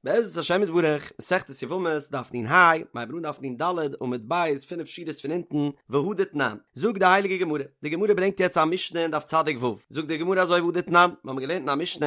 בעזרת השם יתברך, מסכת יבמות, דף נ"ה, מיר הייבן אן דף נ"ד, עמוד ב', פינף שורות פון אונטן, והא דתנן. זאגט די הייליגע גמרא, די גמרא ברענגט יעצט א משנה אין דף צדיק ו', זאגט די גמרא אזוי והא דתנן, מיר האבן געלערנט אין א משנה,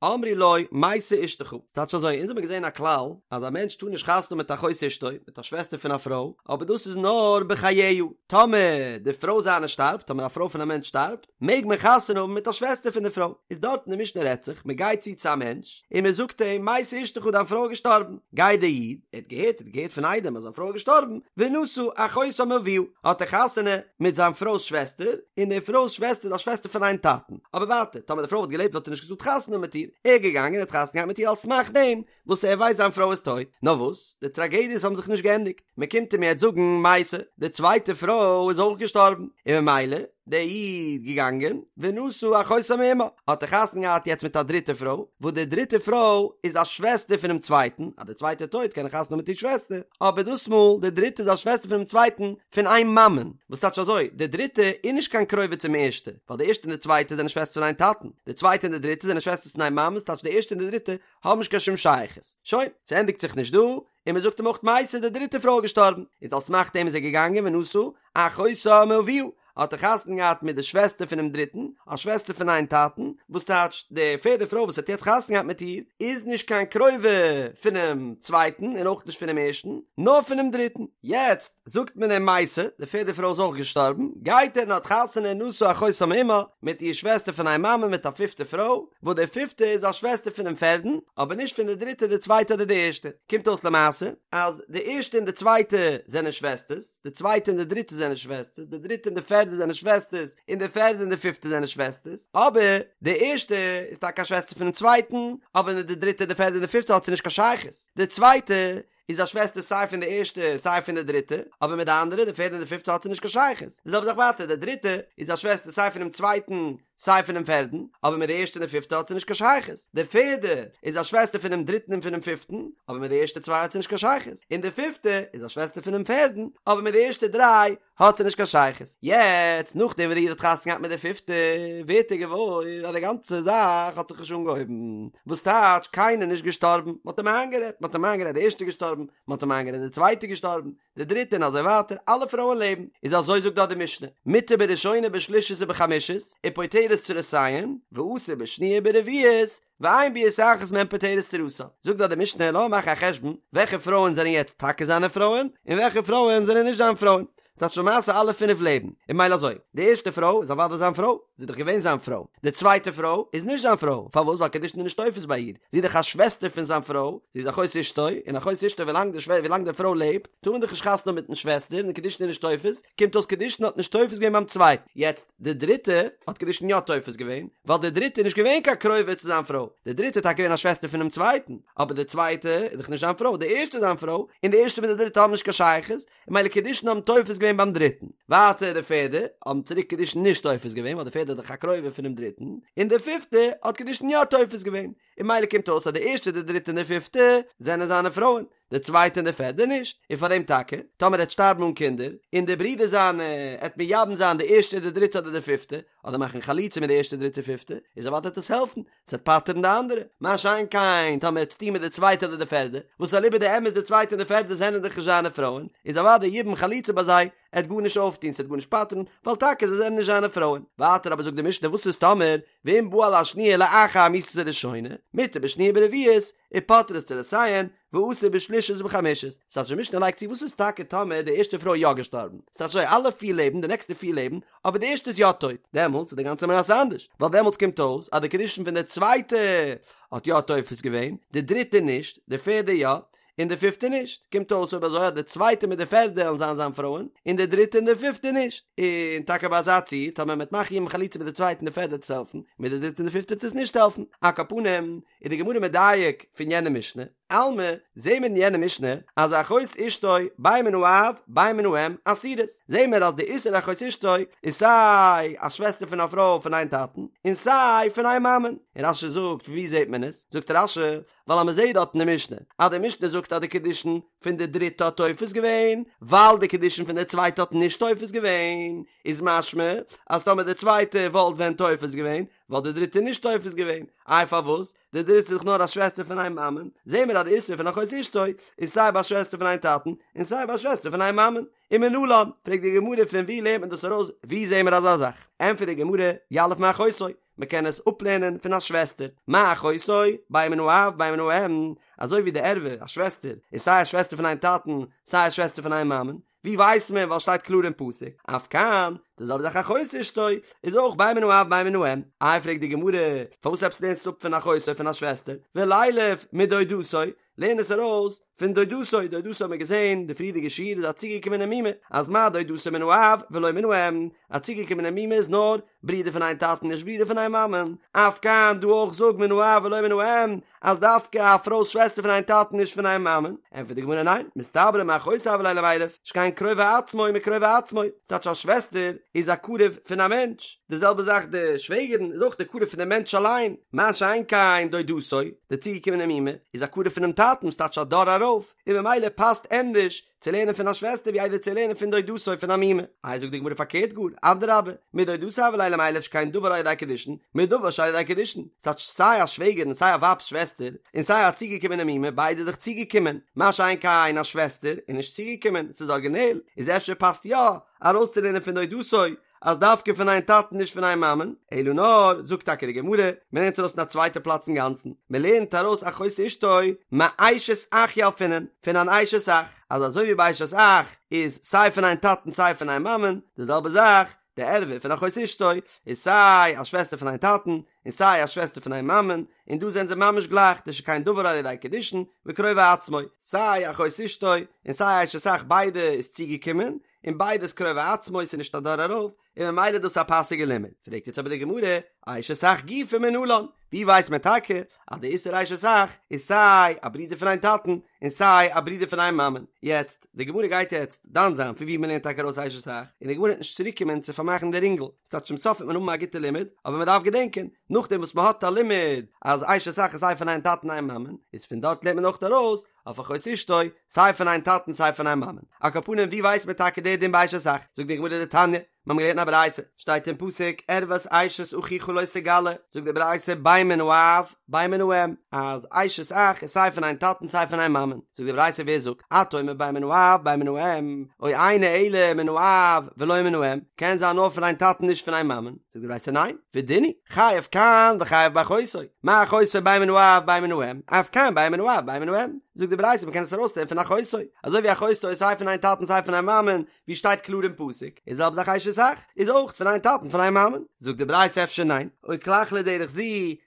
אמרו לו, מתה אשתך, ס'טייטש אזוי, אונז האבן געזען א כלל, אז א מענטש טאר נישט חתונה האבן מיט אחות אשתו, מיט א שוועסטער פון א פרוי, אבער דאס איז נאר בחייה, טאמער די פרוי זיינע שטארבט, טאמער א פרוי פון א מענטש שטארבט, מעג מען חתונה האבן מיט א שוועסטער פון די פרוי, איז דארט אין די משנה רעדט זיך, מען גייט צו צו א מענטש, און מען זאגט אים, מתה אשתך דיין פרוי איז געשטארבן, גייט דער איד, ער האט געהערט, ער האט געהערט פון עדים אז זיין פרוי איז געשטארבן, ונשא אחותה מאביה, האט ער חתונה מיט זיין פרוי'ס שוועסטער, און די פרוי'ס שוועסטער איז א שוועסטער פון איין טאטן, אבער ווייטער, טאמער די פרוי וואלט געלעבט וואלט ער נישט געטארט חתונה האבן מיט איר, ער איז געגאנגען און האט חתונה געהאט מיט איר על סמך דעם וואס ער ווייסט זיין פרוי איז טויט, נאר וואס, די טראגעדיעס האבן זיך נישט געענדיגט, מען קומט אים יעצט זאגן מתה, די צווייטע פרוי איז אויך געשטארבן, און ממילא, דער איד געגאנגען, ונשא אחותה מאמה, האט ער חתונה געהאט יעצט מיט א דריטע פרוי, וואס די דריטע פרוי איז א שוועסטער פונעם צווייטן, אז די צווייטע איז טויט קען ער חתונה האבן מיט איר שוועסטער, אבער דאס מאל די דריטע איז א שוועסטער פונעם צווייטן פון איין מאמען, וואס טייטש אזוי, די דריטע איז נישט קיין קרובה צום ערשטע, ווייל די ערשטע און די צווייטע זענען שוועסטער פון איין טאטן, די צווייטע און די דריטע זענען שוועסטערס פון איין מאמען, ס'טייטש די ערשטע און די דריטע האבן נישט קיין שום שייכות. שוין, ס'ענדיגט זיך נישט דא, און מ'זאגט אים אויך מתה די דריטע פרוי איז געשטארבן, איז על סמך דעם איז ער געגאנגען ונשא אחותה מאביה, האט ער חתונה געהאט מיט די שוועסטער פונעם דריטן, א שוועסטער פון איין טאטן, וואס טייטש די פערדע פרוי וואס האט יעצט חתונה געהאט מיט איר, איז נישט קיין קרובה פונעם צווייטן און אויך נישט פונעם ערשטן, נאר פונעם דריטן. יעצט זאגט מען אים מתה, די פערדע פרוי איז אויך געשטארבן, גייט ער און האט חתונה נשא אחותה מאמה, מיט איר שוועסטער פון איין מאמע מיט א פיפטע פרוי, וואס די פיפטע איז א שוועסטער פונעם פערדן, אבער נישט פון די דריטע די צווייטע אדער די ערשטע. קומט אויס למעשה אז די ערשטע און די צווייטע זענען שוועסטערס, די צווייטע און די דריטע זענען שוועסטערס, די דריטע און די פערדע זענען שוועסטערס, און די פערדע און די פיפטע זענען שוועסטערס, אבער די ערשטע איז טאקע א שוועסטער פונעם צווייטן, אבער מיט די דריטע די פערדע און די פיפטע האט זי נישט קיין שייכות. די צווייטע איז א שוועסטער סיי פון די ערשטע סיי פון די דריטע, אבער מיט די אנדערע, די פערדע און די פיפטע האט זי נישט קיין שייכות. די זעלבע זאך ווייטער, די דריטע איז א שוועסטער סיי פונעם צווייטן סיי פונעם פערדן, אבער מיט די ערשטע און די פיפטע האט זי נישט קיין שייכות. די פערדע איז א שוועסטער פונעם דריטן און פונעם פיפטן, אבער מיט די ערשטע צוויי האט זי נישט קיין שייכות. און די פיפטע איז א שוועסטער פונעם פערדן, אבער מיט די ערשטע דריי האט זי נישט קיין שייכות. יעצט, נאכדעם וואס די איד האט חתונה געהאט מיט די פיפטע, ווערט ער געוואויר אז די גאנצע זאך האט זיך נישט אנגעהויבן. וואס טייטש, קיינער נישט געשטארבן, מען האט אים איינגערעדט, מען האט אים איינגערעדט די ערשטע געשטארבן, מען האט אים איינגערעדט די צווייטע געשטארבן, די דריטע און אזוי ווייטער, אלע פרויען לעבן, איז אזוי זאגט דארט די משנה, מותר בראשונה בשלישית ובחמישית, ופוטרת צרותיהן, ואסור בשניה וברביעית, ואין ביאת אחת מהן פוטרת צרתה. זאגט דארט די משנה, לאמיר מאכן א חשבון, וועלכע פרויען זענען יעצט טאקע זיינע פרויען, און וועלכע פרויען זענען נישט זיין פרויען. ס'טייטש למעשה אלע פינף לעבן, און ממילא אזוי, די ערשטע פרוי איז אוודאי זיין פרוי, זי איז דאך געווען זיין פרוי, די צווייטע פרוי איז נישט זיין פרוי, פארוואס? ווייל קידושין איז נישט תופס ביי איר, זי איז דאך א שוועסטער פון זיין פרוי, זי איז אחות אשתו, און אחות אשתו ווילאנג די שווע ווילאנג די פרוי לעבט, טאר מען דאך נישט חתונה האבן מיטן שוועסטער, און קידושין איז נישט תופס, קומט אויס קידושין האט נישט תופס געווען ביים צווייטן, יעצט די דריטע האט קידושין יא תופס געווען, ווייל די דריטע איז נישט געווען קיין קרובה צו זיין פרוי, די דריטע איז טאקע געווען א שוועסטער פונעם צווייטן, אבער די צווייטע איז דאך נישט זיין פרוי, די ערשטע איז זיין פרוי, און די ערשטע מיט די דריטע האבן נישט קיין שייכות, און ממילא קידושין האבן תופס געווען ביים דריטן. ווייטער די פערדע האבן צוריק קידושין נישט תופס געווען ווייל די פערדע איז דאך א קרובה פונעם דריטן, און די פיפטע האט קידושין יא תופס געווען, און ממילא קומט אויס אז די ערשטע די דריטע און די פיפטע זענען זיינע פרויען, די צווייטע און די פערדע נישט, און פאר דעם טאקע, טאמער ער וועט שטארבן אן קינדער, און די ברודער זיינע עט מייבם זיין די ערשטע די דריטע אדער די פיפטע, אדער מאכן חליצה מיט די ערשטע דריטע פיפטע, איז אוודאי וועט עס העלפן, ס'וועט פטר'ן די אנדערע. מה שאין כן, טאמער ער וועט עס טון מיט די צווייטע אדער די פערדע, וואס אליבא דאמת די צווייטע און די פערדע זענען דאך נישט זיינע פרויען, איז אוודאי יבום חליצה ביי זיי, עט גארנישט אויפטון, ס'וועט גארנישט פטר'ן, ווייל טאקע זיי זענען נישט זיינע פרויען. ווייטער אבער זאגט די משנה וואס איז טאמער, ואם בא על השניה לאחר מיתת הראשונה, מותר בשניה וברביעית, ופוטרת צרותיהן, ואסור בשלישית ובחמישית. ס'טייטש די משנה לייגט צו וואס איז טאקע טאמער די ערשטע פרוי איז יא געשטארבן? ס'טייטש אזוי אלע פיר לעבן, די נעקסטע פיר לעבן, אבער די ערשטע איז יא טויט, דעמאלטס איז די גאנצע מעשה אנדערש, ווייל דעמאלטס קומט אויס אז די קידושין פון די צווייטע האט יא תופס געווען, די דריטע נישט, די פערדע יא, און די פיפטע נישט, קומט אויס אויב אזוי אז די צווייטע מיט די פערדע וועלן זיין זיין פרויען, און די דריטע און די פיפטע נישט, און טאקע ביי אזא ציור, טאמער מ'וועט מאכן יבום חליצה מיט די צווייטע און די פערדע וועט עס העלפן, מיט די דריטע און די פיפטע וועט עס נישט העלפן, על כל פנים, איז די גמרא מדייק פון יענע משנה, אלמא, זעהן מיר אין יענע משנה אז אחות אשתו בין מן האב בין מן האם אסורות, זעהן מיר אז די איסור אחות אשתו איז סיי א שוועסטער פון א פרוי פון איין טאטן און סיי פון איין מאמען, און רש"י זאגט ווי זעהט מען עס? זאגט רש"י ווייל אז מען זעהט דארט אין די משנה אז די משנה זאגט אז די קידושין פון די דריטע האט תופס געווען ווייל די קידושין פון די צווייטע האט נישט תופס געווען, איז משמע אז טאמער די צווייטע וואלט ווען תופס געווען. וואלט די דריטע נישט תופס געווען, איי פארוואס? די דריטע איז דאך נאר א שוועסטער פון איין מאמען, זעהן מיר אז די איסור פון אחות אשתו איז סיי ביי א שוועסטער פון איין טאטן און סיי ביי א שוועסטער פון איין מאמען. ומנלן, פרעגט די גמרא פון וואו לערנט מען דאס ארויס, וואו זעהן מיר אזא זאך? ענטפערט די גמרא, יליף מאחותו, מען קען עס אפלערנען פון א שוועסטער, מה אחותו, בין מן האב בין מן האם, אזוי ווי די ערווה, א שוועסטער, איז סיי א שוועסטער פון איין טאטן, סיי א שוועסטער פון איין מאמען, ווי ווייסט מען ווייל שטייט קלאר אין פסוק, אף כאן, די זעלבע זאך אחות אשתו, איז אויך בין מן האב בין מן האם, איי פרעגט די גמרא, פארוואס עפעס לערנסטו אפ פון אחותו פון א שוועסטער, ולילף מדודתו, לערן עס ארויס פון דודתו, דודתו האט מען געזען די פריערדיגע שיעור איז א צוגעקומענע מומע, אז מה דודתו מן האב ולא מן האם, א צוגעקומענע מומע איז נאר ברודער פון איין טאטן נישט ברודער פון איין מאמען, אף כאן דא אויך זאג מן האב ולא מן האם, אז דווקא א פרוי'ס שוועסטער פון איין טאטן נישט פון איין מאמען, ענטפערט די גמרא ניין, מסתברא מאחותו הוה ליה למילף, שכן קרובי עצמו מקרובי עצמו, ס'טייטש א שוועסטער איז א קרוב פון א מענטש, די זעלבע זאך די שוועגערן איז אויך די קרוב פון די מענטש אליין, מה שאין כן דודתו, די צוגעקומענע מומע, איז א קרוב פונעם טאטן, ס'טייטש א דור ארויף, און ממילא פאסט ענדערש צו לערנען פון א שוועסטער ווי איידער צו לערנען פון דודתו פון א מומע. איי זאגט די גמרא פארקערט גאר, אדרבה, מדודתו הוה ליה למילף שכן דבר על ידי קידושין, מדבר שעל ידי קידושין, ס'טייטש סיי א שוועגערן און סיי א ווייב'ס שוועסטער, און סיי א צוגעקומענע מומע, ביידע איז דאך צוגעקומען, מה שאין כן א שוועסטער איז נישט צוגעקומען, ס'איז ארגינעל, איז אפשר פאסט יא ארויסצולערנען פון דודתו אז דווקא פון איין טאטן נישט פון איין מאמען, אלא נאר, זאגט טאקע די גמרא, מען לערנט ארויס אין א צווייטע פלאץ אינגאנצן, מען לערנט ארויס אחות אשתו מאשת אח ילפינן, פון אן אשת אח, אז אזוי ווי ביי אשת אח איז סיי פון איין טאטן סיי פון איין מאמען, די זעלבע זאך, די ערווה פון אחות אשתו איז סיי א שוועסטער פון איין טאטן און סיי א שוועסטער פון איין מאמען, און דא זענען זיי ממש גלייך, דשכן דבר על ידי קידושין וקרובי עצמו, סיי אחות אשתו און סיי אשת אח ביידע איז צוגעקומען, און ביידע איז קרובי עצמו ס'איז נישט א דור ארויף, און ממילא איז דאס א פאסיגע לימוד. פרעגט יעצט אבער די גמרא, אשת אח גופא מנלן, ווי ווייסט מען טאקע אז די איסור אשת אח איז סיי א ברודער פון איין טאטן און סיי א ברודער פון איין מאמען? יעצט, די גמרא גייט יעצט דן זיין פון ווי מ'לערנט טאקע ארויס אשת אח, און די גמרא וועט נישט צוריק קומען צו פארמאכן די רינגל, ס'טייטש צום סוף וועט מען האבן א גוטע לימוד, אבער מ'דארף געדענקען, נאכדעם וואס מ'האט א לימוד אז אשת אח איז סיי פון איין טאטן איין מאמען, איז פון דארט לערנט מען אויך ארויס אויף אחות אשתו, סיי פון איין טאטן סיי פון איין מאמען. על כל פנים ווי ווייסט מען טאקע די דין ביי אשת אח? זאגט די גמרא דתניא, מיר האבן געלערנט א ברייתא, שטייט אין פסוק ערות אשת אחיך לא תגלה, זאגט די ברייתא בין מן האב בין מן האם, אז אשת אח איז סיי פון איין טאטן סיי פון איין מאמען, זאגט די ברייתא ווער זאגט, אתה אומר בין מן האב בין מן האם, או אינו אלא מן האב ולא מן האם, קען זיין נאר פון איין טאטן נישט פון איין מאמען, זאגט די ברייתא ניין, ודין הוא, חייב כאן וחייב באחותו, מה אחותו בין מן האב בין מן האם, אף כאן בין מן האב בין מן האם, זאגט די ברייתא מ'קען עס ארויסלערנען פון אחותו, אזוי ווי אחותו איז סיי פון איין טאטן סיי פון איין מאמען, ווי שטייט קלאר אין פסוק, איז זעלבע זאך אשת אח, איז אויך פון איין טאטן פון איין מאמען, זאגט די ברייתא אפשר ניין, או כלך לדרך זו,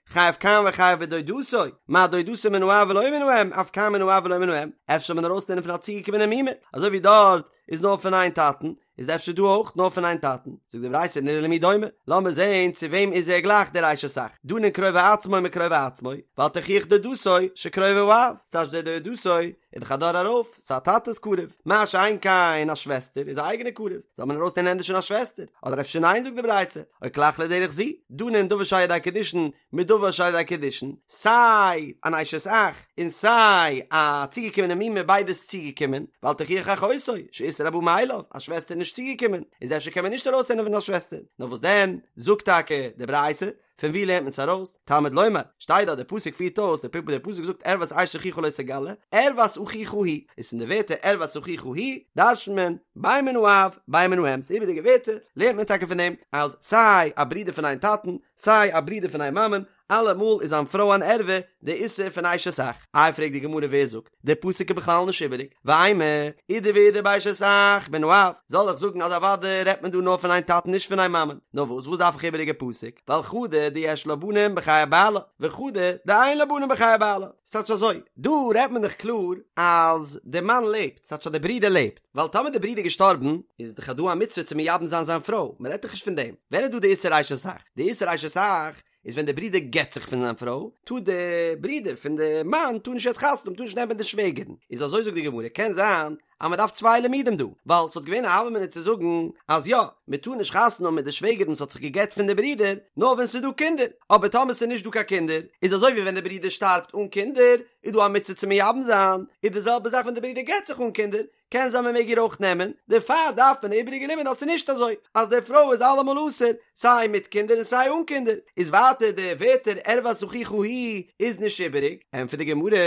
חייב כאן וחייב בדודתו, מה דודתו מן האב ולא מן האם, אף כאן מן האב ולא מן האם, אפשר זאל מען ארויסלערנען פון א צוגעקומענע מומע, אזוי ווי דארט איז נאר פון איין טאטן, איז אפשר דא אויך נאר פון איין טאטן? זאגט די ברייתא נראה למי דומה, לאמיר זעהן צו וועם איז ער גלייך דער אשת אח, דנין קרובי עצמו מקרובי עצמו, ואל תוכיח דודתו שקרובי האב, ס'טייטש דער דודתו איז דאך א דור ארויף, ס'איז א טאטע'ס קרוב, מה שאין כן א שוועסטער איז א אייגענע קרוב, זאל מען ארויסלערנען ענדערש פון א שוועסטער, אדער אפשר ניין זאגט די ברייתא, או כלך לדרך זו, דנין דבר שעל ידי קידושין מדבר שעל ידי קידושין, סיי אן אשת אח און סיי א צוגעקומענע מומע ביידע איז צוגעקומען, ואל תוכיח אחותו, שאיסור הבא מאליו, א שוועסטער איז נישט צוגעקומען, איז אפשר קען מען נישט ארויסלערנען פון א שוועסטער, נאר וואס דען, זאגט טאקע די ברייתא, פון ווי לערנט מען עס ארויס, תלמוד לומר, שטייט דארט דער פסוק פירט אויס, דער פסוק זאגט ערות אשת אחיך לא תגלה, ערות אחיך היא, איז פון די ווערטער ערות אחיך היא, דרש'נט מען, בין מן האב, בין מן האם, ס'איז איבעריגע ווערטער, לערנט מען טאקע פון דעם, אז סיי א ברודער פון איין טאטן, סיי א ברודער פון איין מאמען, אלעמאל איז זיין פרוי אן ערווה, די איסור פון אשת אח. איי פרעגט די גמרא ווער זאגט, די פסוק איז בכלל נישט איבעריג, ואימא, אידי ואידי באשת אח מן האב, זאל איך זאגן אז אוודאי רעדט מען דא נאר פון איין טאטן נישט פון איין מאמען, נאר וואס וואס דארף איך איבעריגע פסוק, ווייל חדא דיש לה בנים בחיי בעלה, וחדא דאין לה בנים בחיי בעלה. ס'טייטש אזוי, דא רעדט מען דאך קלאר אז די מאן לעבט, ס'טייטש אז די ברודער לעבט, ווייל טאמער די ברודער איז געשטארבן, איז דאך דא א מצוה צו מייבם זיין זיין פרוי, מען רעדט דאך נישט פון דעם, ווען איז דא די איסור אשת אח? די איסור אשת אח איז ווען די ברודער גט זיך פון זיין פרוי, טאר די ברודער פון די מאן טאר נישט יעצט חתונה האבן, טאר נישט נעמען די שוועגערן, איז אזוי זאגט די גמרא, קען זיין. אז מען דארף צוויי לימודים דא, ווייל ס'וואלט געווען א הוה אמינא צו זאגן אז יא, מען טאר נישט חתונה האבן מיט די שוועגערין וואס האט זיך גע'גט פון די ברודער, נאר ווען ס'איז דא קינדער, אבער טאמער ס'איז נישט דא קיין קינדער, איז אזוי ווי ווען די ברודער שטארבט אן קינדער, איז דא א מצוה צו מייבם זיין, איז די זעלבע זאך ווען די ברודער גט זיך אן קינדער, קען זיין מען מעג איר אויך נעמען, דערפאר דארף מען א איבעריגע לימוד אז ס'איז נישט אזוי אז די פרוי איז אלעמאל אסור, סיי מיט קינדער און סיי אן קינדער, איז ווייטער די ווערטער ערות אחיך היא איז נישט איבעריג, ענטפערט די גמרא,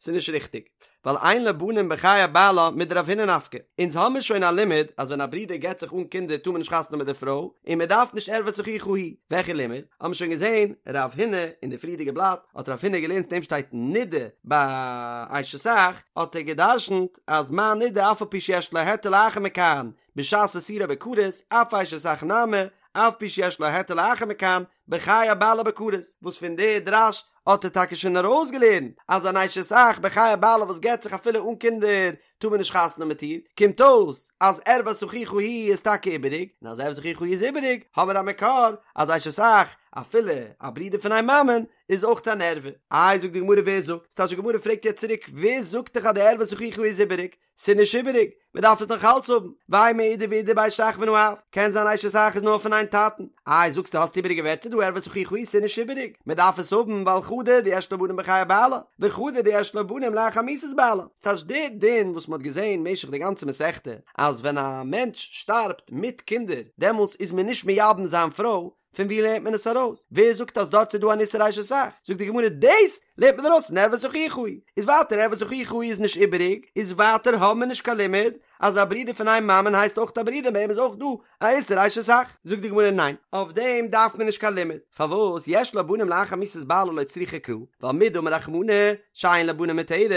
ס'איז נישט ריכטיג, ווייל אין לה בנים בחיי בעלה מדרב הונא נפקא, אונז האמיר שוין א לימוד אז ווען א ברודער גט זיך אן קינדער טאר מען נישט חתונה האבן מיט די פרוי, און מען דארף נישט ערות אחיך היא, וועלכע לימוד? האמיר שוין געזען רב הונא אין די פריערדיגע בלאט האט רב הונא געלערנט אין דעם שטייט נידה ביי אשת אח, האט ער גע'דרש'נט אז מה נידה אף על פי שיש לה היתר לאחר מכאן בשעת איסורה בכרת, אף אשת אח נמי, אף פי שיש לה היתר לאחר מכאן, בחיי בעלה בכרת, וואס פון די דרש האט ער טאקע שוין ארויסגעלערנט אז אן אשת אח בחיי בעלה וואס גט זיך אפילו אן קינדער טאר מען נישט חתונה האבן מיט איר, קומט אויס אז ערות אחיך היא איז טאקע איבעריג, און אז ערות אחיך היא איז איבעריג האבן מיר א מקור אז אשת אח אפילו א ברודער פון איין מאמען איז אויך אן ערווה. איי זאגט די גמרא ווער זאגט? ס'טייטש די גמרא פרעגט יעצט צוריק ווער זאגט דיך אז די ערות אחיך איז איבעריג? ס'איז נישט איבעריג, מען דארף עס נאך אלץ האבן, ואימא אידי ואידי באשת אח מן האב, קען זיין אשת אח איז נאר פון איין טאטן, איי זאגסטו האסט איבעריגע ווערטער דא ערות אחיך היא ס'איז נישט איבעריג, מען דארף עס האבן ווייל חדא דיש לה בנים בחיי בעלה, וחדא דיש לה בנים לאחר מיתת בעלה, ס'טייטש די דין וואס מען האט געזען משך די גאנצע מסכתא אז ווען א מענטש שטארבט מיט קינדער דעמאלטס איז מען נישט מייבם זיין פרוי, פון ווי לערנט מען עס ארויס? ווער זאגט אז דארט איז דא אן איסור אשת אח? זאגט די גמרא דאס לערנט מען ארויס פון ערות אחיך היא, איז ווייטער ערות אחיך היא איז נישט איבעריג, איז ווייטער האבן מיר נישט קיין לימוד אז א ברודער פון איין מאמען הייסט אויך א ברודער ביי אים איז אויך דא א איסור אשת אח. זאגט די גמרא ניין, אויף דעם דארף מען נישט קיין לימוד, פארוואס יש לה בנים לאחר מיתת בעלה לא צריכא קרא, ווייל מדאמר רחמנא שאין לה בנים מותרת,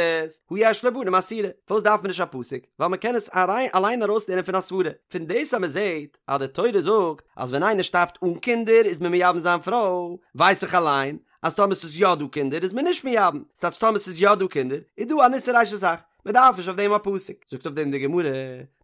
הא יש לה בנים אסירה, פארוואס דארף מען נישט א פסוק? ווייל מען קען עס אליין ארויסלערנען פון א סברה, פון דאס אז מען זעט אז די תורה זאגט אז ווען איינער שטארבט אן קינדער איז מען מייבם זיין פרוי, ווייס איך אליין אז טאמער ס'איז יא דא קינדער איז מען נישט מייבם, ס'טייטש טאמער ס'איז יא דא קינדער איז דא אן איסור אשת אח, מען דארף נישט אויף דעם א פסוק. זאגט אויף דעם די גמרא,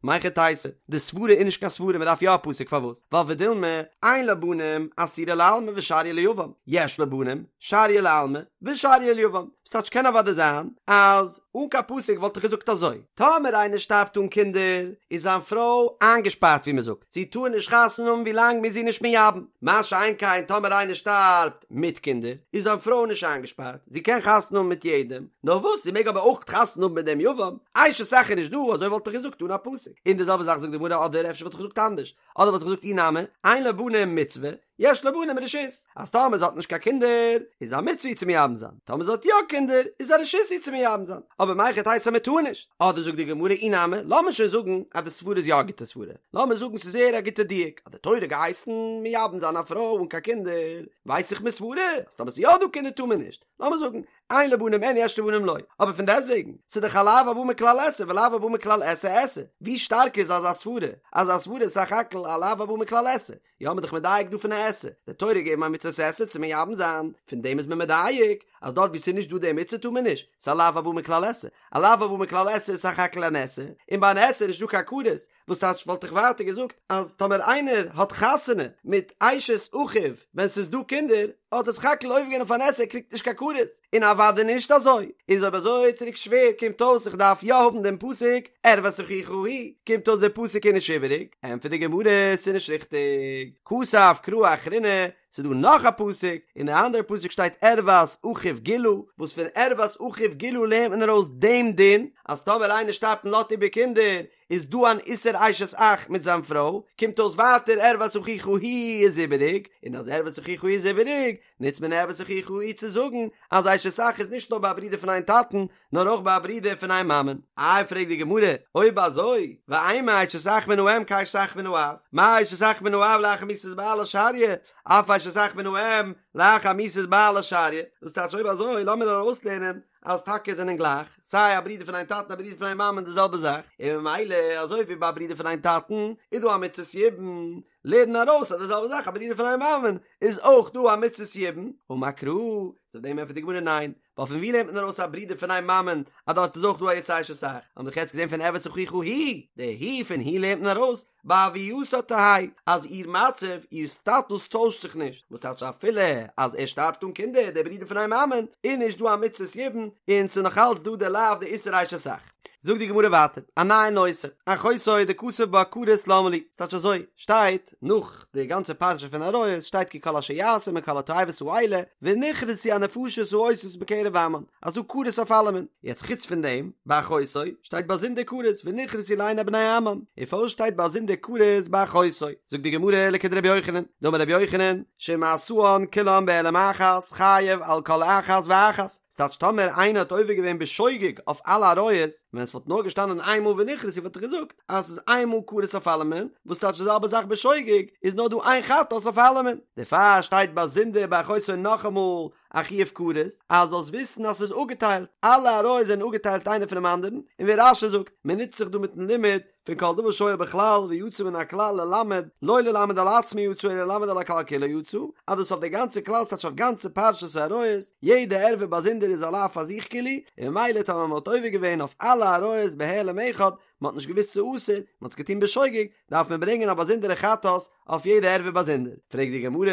מהיכי תיתי, די סברה איז נישט קיין סברה מען דארף יא א פסוק פארוואס? ווייל ודילמא אין לה בנים אסירה לעלמא ושריא ליבם, יש לה בנים שריא לעלמא ושריא ליבם, ס'טייטש קען אוודאי זיין אז אן קיין פסוק וואלט איך געזאגט אזוי, טאמער איינער שטארבט אן קינדער איז זיין פרוי איינגעשפארט ווי מ'זאגט, זי טאר נישט חתונה האבן ווי לאנג מ'איז איר נישט מייבם, מה שאין כן טאמער איינער שטארבט מיט קינדער איז זיין פרוי נישט איינגעשפארט, זי קען חתונה האבן מיט יעדעם, נאר וואס זי מעג אבער אויך חתונה האבן מיט דעם יבם, אשת אח איז נישט דא, אזוי וואלט איך געזאגט אן א פסוק, און די זעלבע זאך זאגט די גמרא אדער אפשר וואלט איך געזאגט אנדערש, אדער וואלט איך געזאגט אי נמי, אין לה בנים מצוה, יש לה בנים רשות, אז טאמער זי האט נישט קיין קינדער איז א מצוה איר צו מייבם זיין, טאמער זי האט יא קינדער איז א רשות איר צו מייבם זיין, אבער מהיכי תיתי אז מען טאר נישט? אדער זאגט די גמרא אי נמי, לאמיר שוין זאגן אז די סברה איז יא א גוטע סברה, לאמיר זאגן ס'איז זייער א גוטע דיוק, אז די תורה געהייסן מייבם זיין א פרוי אן קיין קינדער, ווייס איך מסברה אז טאמער ס'איז יא דא קינדער טאר מען נישט, לאמיר זאגן אין לה בנים אין יש לה בנים לא, אבער פון דעסטוועגן, ס'איז דאך א לאו הבא מכלל עשה ולאו הבא מכלל עשה עשה, ווי שטארק איז אזא סברה, אזא סברה איז סך הכל א לאו הבא מכלל עשה, יא מ'איז דאך מדייק דא פון א עשה, די תורה געגעבן א מצות עשה צו מייבם זיין, פון דעם איז מען מדייק אז דארט וואו ס'איז נישט דא די מצוה טאר מען נישט, ס'איז א לאו הבא מכלל עשה, א לאו הבא מכלל עשה איז סך הכל אן עשה, און ביי אן עשה איז נישט דא קיין כרת, וואס טייטש וואלט איך ווייטער געזאגט אז טאמער איינער האט חתונה מיט אשת אחיו ווען ס'איז דא קינדער האט ער סך הכל עובר געווען אויף אן עשה ער קריגט נישט קיין כרת, און אוודאי נישט אזוי, איז אויב אזוי צוריק שווער קומט אויס איך דארף יא האבן דעם פסוק ערות אחיך היא, קומט אויס דער פסוק איז נישט איבעריג, ענטפערט די גמרא ס'איז נישט ריכטיג, כתב קרא אחרינא, ס'איז דא נאך א פסוק, אין די אנדערע פסוק שטייט ערות אחיו גילה, וואס פון ערות אחיו גילה לערנט מען ארויס דעם דין, אז טאמער איינער שטארבט און לאזט איבער קינדער, איז דא אן איסור אשת אח מיט זיין פרוי, קומט אויס ווייטער ערות אחיך היא איז איבעריג, און אז ערות אחיך היא איז איבעריג, נוצט מען ערות אחיך היא צו זאגן אז אשת אח איז נישט נאר ביי א ברודער פון איין טאטן, נאר אויך ביי א ברודער פון איין מאמען. איי פרעגט די גמרא, אויב אזוי, ואימא אשת אח מן האם כאשת אח מן האב, מה אשת אח מן האב לאחר מיתת בעלה שריא, אף אשת אח מן האם לאחר מיתת בעלה שריא, דאס טייטש אויב אזוי לאמיר ארויסלערנען אז טאקע זענען גלייך, סיי א ברודער פון איין טאטן א ברודער פון איין מאמען די זעלבע זאך, און ממילא אזוי ווי ביי א ברודער פון איין טאטן איז דא א מצות יבום, לערן ארויס אז די זעלבע זאך א ברודער פון איין מאמען איז אויך דא א מצות יבום, אמר קרא, אויף דעם ענטפערט די גמרא ניין, ווייל פון ווי לערנט מען ארויס א ברודער פון איין מאמען אז דארט איז אויך דא א איסור אשת אח, האבן דאך יעצט געזען פון ערות אחיך היא, די היא פון היא לערנט מען ארויס בהוייתה תהא אז איר מצב, איר סטאטוס טוישט זיך נישט, וואס טייטש אפילו אז ער שטארבט אן קינדער, דער ברודער פון איין מאמען, איז נישט דא א מצות יבום, און ס'איז נאך אלץ דא די לאו די איסור אשת אח. זאגט די גמרא ווייטער, א נייע נושא, אחותו דכתב בה כרת למה לי, ס'טייטש אזוי, שטייט נאך די גאנצע פרשה פון עריות, שטייט כי כל אשר יעשו מכל התועבות האלה, ונכרתו הנפשות העושות בקרב עמם, אז דא כרת אויף אלעמען, יעצט חוץ פון דעם, ביי אחותו, שטייט באזונדער כרת, ונכרתו לעיני בני עמם, און פארוואס שטייט באזונדער כרת ביי אחותו? זאגט די גמרא לכדרבי יוחנן, דאמר רבי יוחנן, שאם עשאן כולן בהעלם אחת, חייב על כל אחת ואחת, ס'טייטש טאמער איינער האט עובר געווען בשוגג אויף אלע עריות, ווען עס וואלט נאר געשטאנען איין מאל ונכרתו וואלט איך געזאגט אז ס'איז איין מאל כרת אויף אלעמען, וואס טייטש די זעלבע זאך בשוגג איז נאר דא איין חטאת אויף אלעמען, דערפאר שטייט באזונדער ביי אחותו נאכאמאל א חיוב כרת, אז זאלסט וויסן אז ס'איז אפגעטיילט, אלע עריות זענען אפגעטיילט איינער פונעם אנדערן, און ווי רש"י זאגט, מען נוצט זיך דא מיטן לימוד פון כל דבר שהיה בכלל ויצא מן הכלל ללמד, לא ללמד על עצמו יצא אלא ללמד על הכלל כולו יצא, אז דאס אויף די גאנצע כלל ס'טייטש אויף גאנצע פרשת העריות, יעדע ערווה באזונדער איז א לאו פאר זיך כאילו, און ממילא טאמער מען האט עובר געווען אויף אלע עריות בהעלם אחד, מען האט נישט געוואוסט ס'איז אסור, מען האט עס געטון בשוגג, דארף מען ברענגען א באזונדערע חטאת אויף יעדע ערווה באזונדער. פרעגט די גמרא,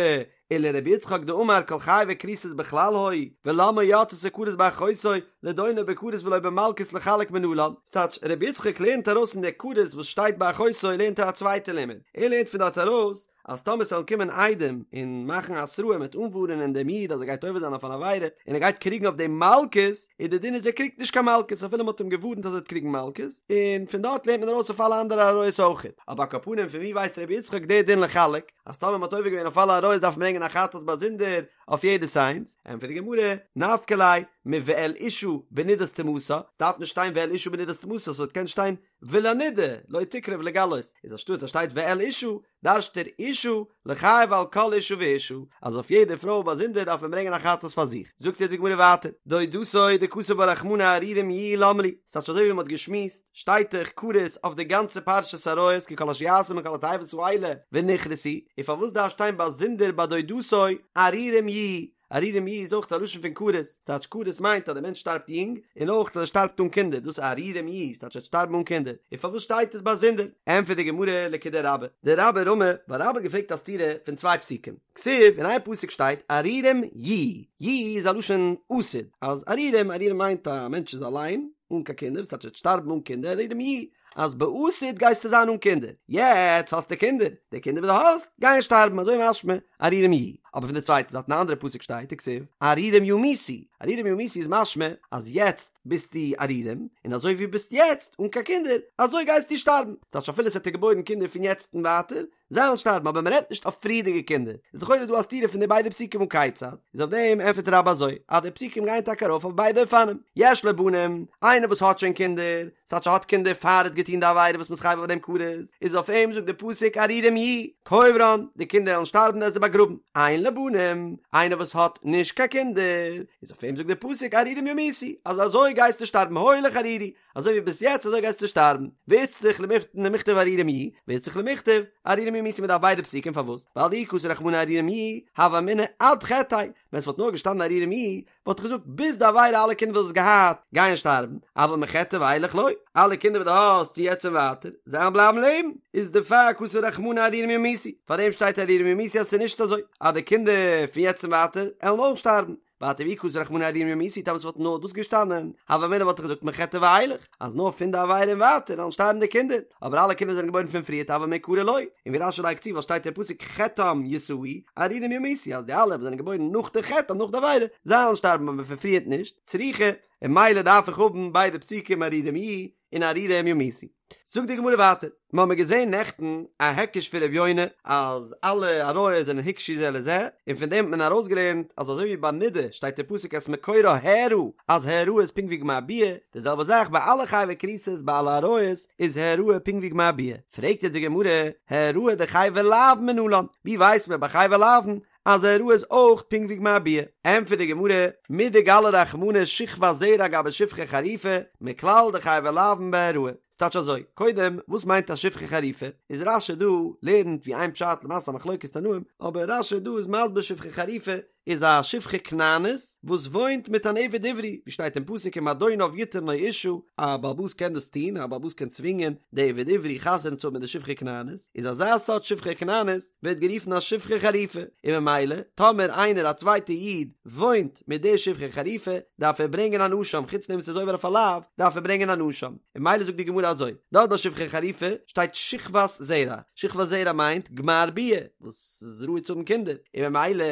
ולרבי יצחק דאמר כל חייבי כריתות בכלל היו, ולמה יצתה כרת באחותו, לדונו בכרת ולא במלקות לחלק מנלן, ס'טייטש, רבי יצחק לערנט ארויס פון די כרת וואס שטייט ביי אחותו לערנט ער א צווייטע לימוד, ער לערנט פון דארט ארויס אז טאמער ס'וועלן קומען עדים און מאכן התראה מ'וועט אנווארענען דעם איד אז ער גייט עובר זיין אויף אן עבירה און ער גייט קריגן אויף דעם מלקות, איז די דין איז ער קריגט נישט קיין מלקות אפילו מ'האט אים געווארנט אז ער וועט קריגן מלקות, און פון דארט לערנט מען ארויס אויף אלע אנדערע עריות אויכעט, אבער על כל פנים פון ווי ווייסט רבי יצחק די דין לחלק? אז טאמער מ'האט עובר געווען אויף אלע עריות דארף מען ברענגען א חטאת באזונדער אויף יעדעס איינס, ענטפערט די גמרא, נפקא ליה מואל אשה בנדת טומאתה, דארף נישט שטיין ואל אשה בנדת טומאתה, ס'וואלט געקענט שטיין ולנידה לא תקרב לגלות, איז אנשטאט אז שטייט ואל אשה, דרש'ט ער אשה לחייב על כל אשה ואשה, אז אויף יעדע פרוי באזונדער דארף מען ברענגען א חטאת פאר זיך. זאגט יעצט די גמרא ווייטער, דודתו דכתב בה רחמנא ערירים יהיו למה לי, ס'טייטש אזוי ווי מ'האט געשמועסט, שטייט דאך כרת אויף די גאנצע פרשת עריות כי כל אשר יעשו מכל התועבות האלה ונכרתו, און פארוואס דארף שטיין באזונדער ביי דודתו ערירים יהיו? ערירים יהיו איז אויך א לשון פון כרת, ס'טייטש כרת מיינט אז דער מענטש שטארבט יונג, און אויך אז ער שטארבט אן קינדער, דאס איז ערירים יהיו, ס'טייטש ער וועט שטארבן אן קינדער, און פארוואס שטייט עס באזונדער? ענטפערט די גמרא לכדרבה, דרבה רמי, ווייל רבה האט געפרעגט א סתירה פון צוויי פסוקים. כתיב, אין איין פסוק שטייט ערירים יהיו, יהיו איז א לשון עתיד, אז ערירים, ערירים מיינט א מענטש איז אליין, אן קיין קינדער, וואס טייטש ער וועט שטארבן אן קינדער, ערירים יהיו, אז בעתיד גייסטו זיין אן קינדער, יעצט האסטו קינדער, די קינדער וואס דו האסט גייען שטארבן, אזוי משמע ערירים יהיו, אבער פון די צווייטע זייט אין א אנדערע פסוק שטייט וכתיב ערירים ימותו, ערירים ימותו איז משמע אז יעצט ביסטו ערירים, און אזוי ווי ביסט יעצט אן קיין קינדער, אזוי גייסטו שטארבן, ס'טייטש אפילו ס'האט דיר געבוירן קינדער פון יעצט און ווייטער, זיי וועלן שטארבן אבער מען רעדט נישט אויף פריערדיגע קינדער, איז לכאורה דא א סתירה פון די ביידע פסוקים הא כיצד, איז אויף דעם ענטפערט רבה אזוי, אז די פסוקים גייען טאקע ארויף אויף ביידע אופנים, יש לו בנים, איינער וואס האט שוין קינדער, ס'טייטש ער האט קינדער פאר ער האט געטון די עבירה וואס מ'איז חייב אויף דעם כרת, איז אויף אים זאגט די פסוק ערירים יהיו, קוברן, די קינדער וועלן שטארבן ער וועט זיי באגראבן, אין לו בנים, איינער וואס האט נישט קיין קינדער, איז אויף אים זאגט די פסוק ערירים ימותו, אז אזוי גייסטו שטארבן הולך ערירי, אזוי ווי ביסט יעצט אזוי גייסטו שטארבן, ואיצטריך למיכתב ערירים יהיו, ואיצטריך למיכתב ערירים ימותו מ'דארף ביידע פסוקים פארוואס? ווייל דאי כתב רחמנא ערירים יהיו, הוה אמינא עד חטאיה, ווען ס'וואלט נאר געשטאנען ערירים יהיו, וואלט איך געזאגט ביז די עבירה אלע קינדער וואס דו האסט געהאט גייען שטארבן, אבל מחטאיה ואילך לא, אלע קינדער וואס דו האסט פון יעצט און ווייטער, זיי וועלן בלייבן לעבן, איז דערפאר כתב רחמנא ערירים ימותו, פארדעם שטייט ערירים ימותו אז ס'איז נישט אזוי אז די קינדער פון יעצט און ווייטער עלן אויך שטארבן, ווייטער ואי כתב רחמנא ערירים ימותו טאמער ס'וואלט נאר דאס געשטאנען, הוה אמינא וואלט איך געזאגט מחטאיה ואילך, אז נאר פון די עבירה און ווייטער וועלן שטארבן די קינדער, אבער אלע קינדער זענען געבוירן פון פריערט אבל מעיקרא לא, און ווי רש"י לייגט צו ווייל שטייט אין פסוק חטאם ישאו, ערירים ימותו אז די אלע וואס זענען געבוירן נאך די חטא נאך די עבירה, זיי וועלן שטארבן אבער פון פריערט נישט, צריכא, און ממילא דארף איך האבן ביידע פסוקים ערירים יהיו און ערירים ימותו. זאגט די גמרא ווייטער, מיר האבן געזען נעכטן א היקש פון ר' יונה אז אלע עריות זענען הוקשו זה לזה, און פון דעם האט מען ארויסגעלערנט אז אזוי ווי ביי נידה שטייט אין פסוק את מקורה הערה אז העראה איז פונקט ווי גמר ביאה, די זעלבע זאך ביי אלע חייבי כריתות ביי אלע עריות איז העראה פונקט ווי גמר ביאה. פרעגט יעצט די גמרא, העראה דחייבי לאוין מנלן, ווי ווייסט מען ביי חייבי לאוין אז העראה איז אויך פונקט ווי גמר ביאה. ענטפערט די גמרא, מדגלי רחמנא שכבת זרע גבי שפחה חרופה, מכלל דחייבי לאוין בהעראה. ס'טייטש אזוי, קודם, וואס מיינט א שפחה חרופה? איז רש"י דא לערנט ווי איין פשט למעשה א מחלוקת תנאים, אבער רש"י דא איז מסביר שפחה חרופה. איז א שפחה כנענית וואס וואוינט מיט אן עבד עברי, ווי שטייט אין פסוק אם אדוניו יתן לו אשה, א בעל הבית קען דאס טון, א בעל הבית קען צווינגען די עבד עברי חתונה צו האבן מיט די שפחה כנענית, איז אזא סארט שפחה כנענית ווערט גערופן א שפחה חרופה, און ממילא טאמער איינער א צווייטע איד וואוינט מיט די שפחה חרופה דארף ער ברענגען אן אשם, חוץ דעם וואס ער איז עובר אויף א לאו דארף ער ברענגען אן אשם, און ממילא זאגט די גמרא אזוי, דארט ביי שפחה חרופה שטייט שכבת זרע, שכבת זרע מיינט גמר ביאה, וואס איז ראוי צו האבן קינדער, און ממילא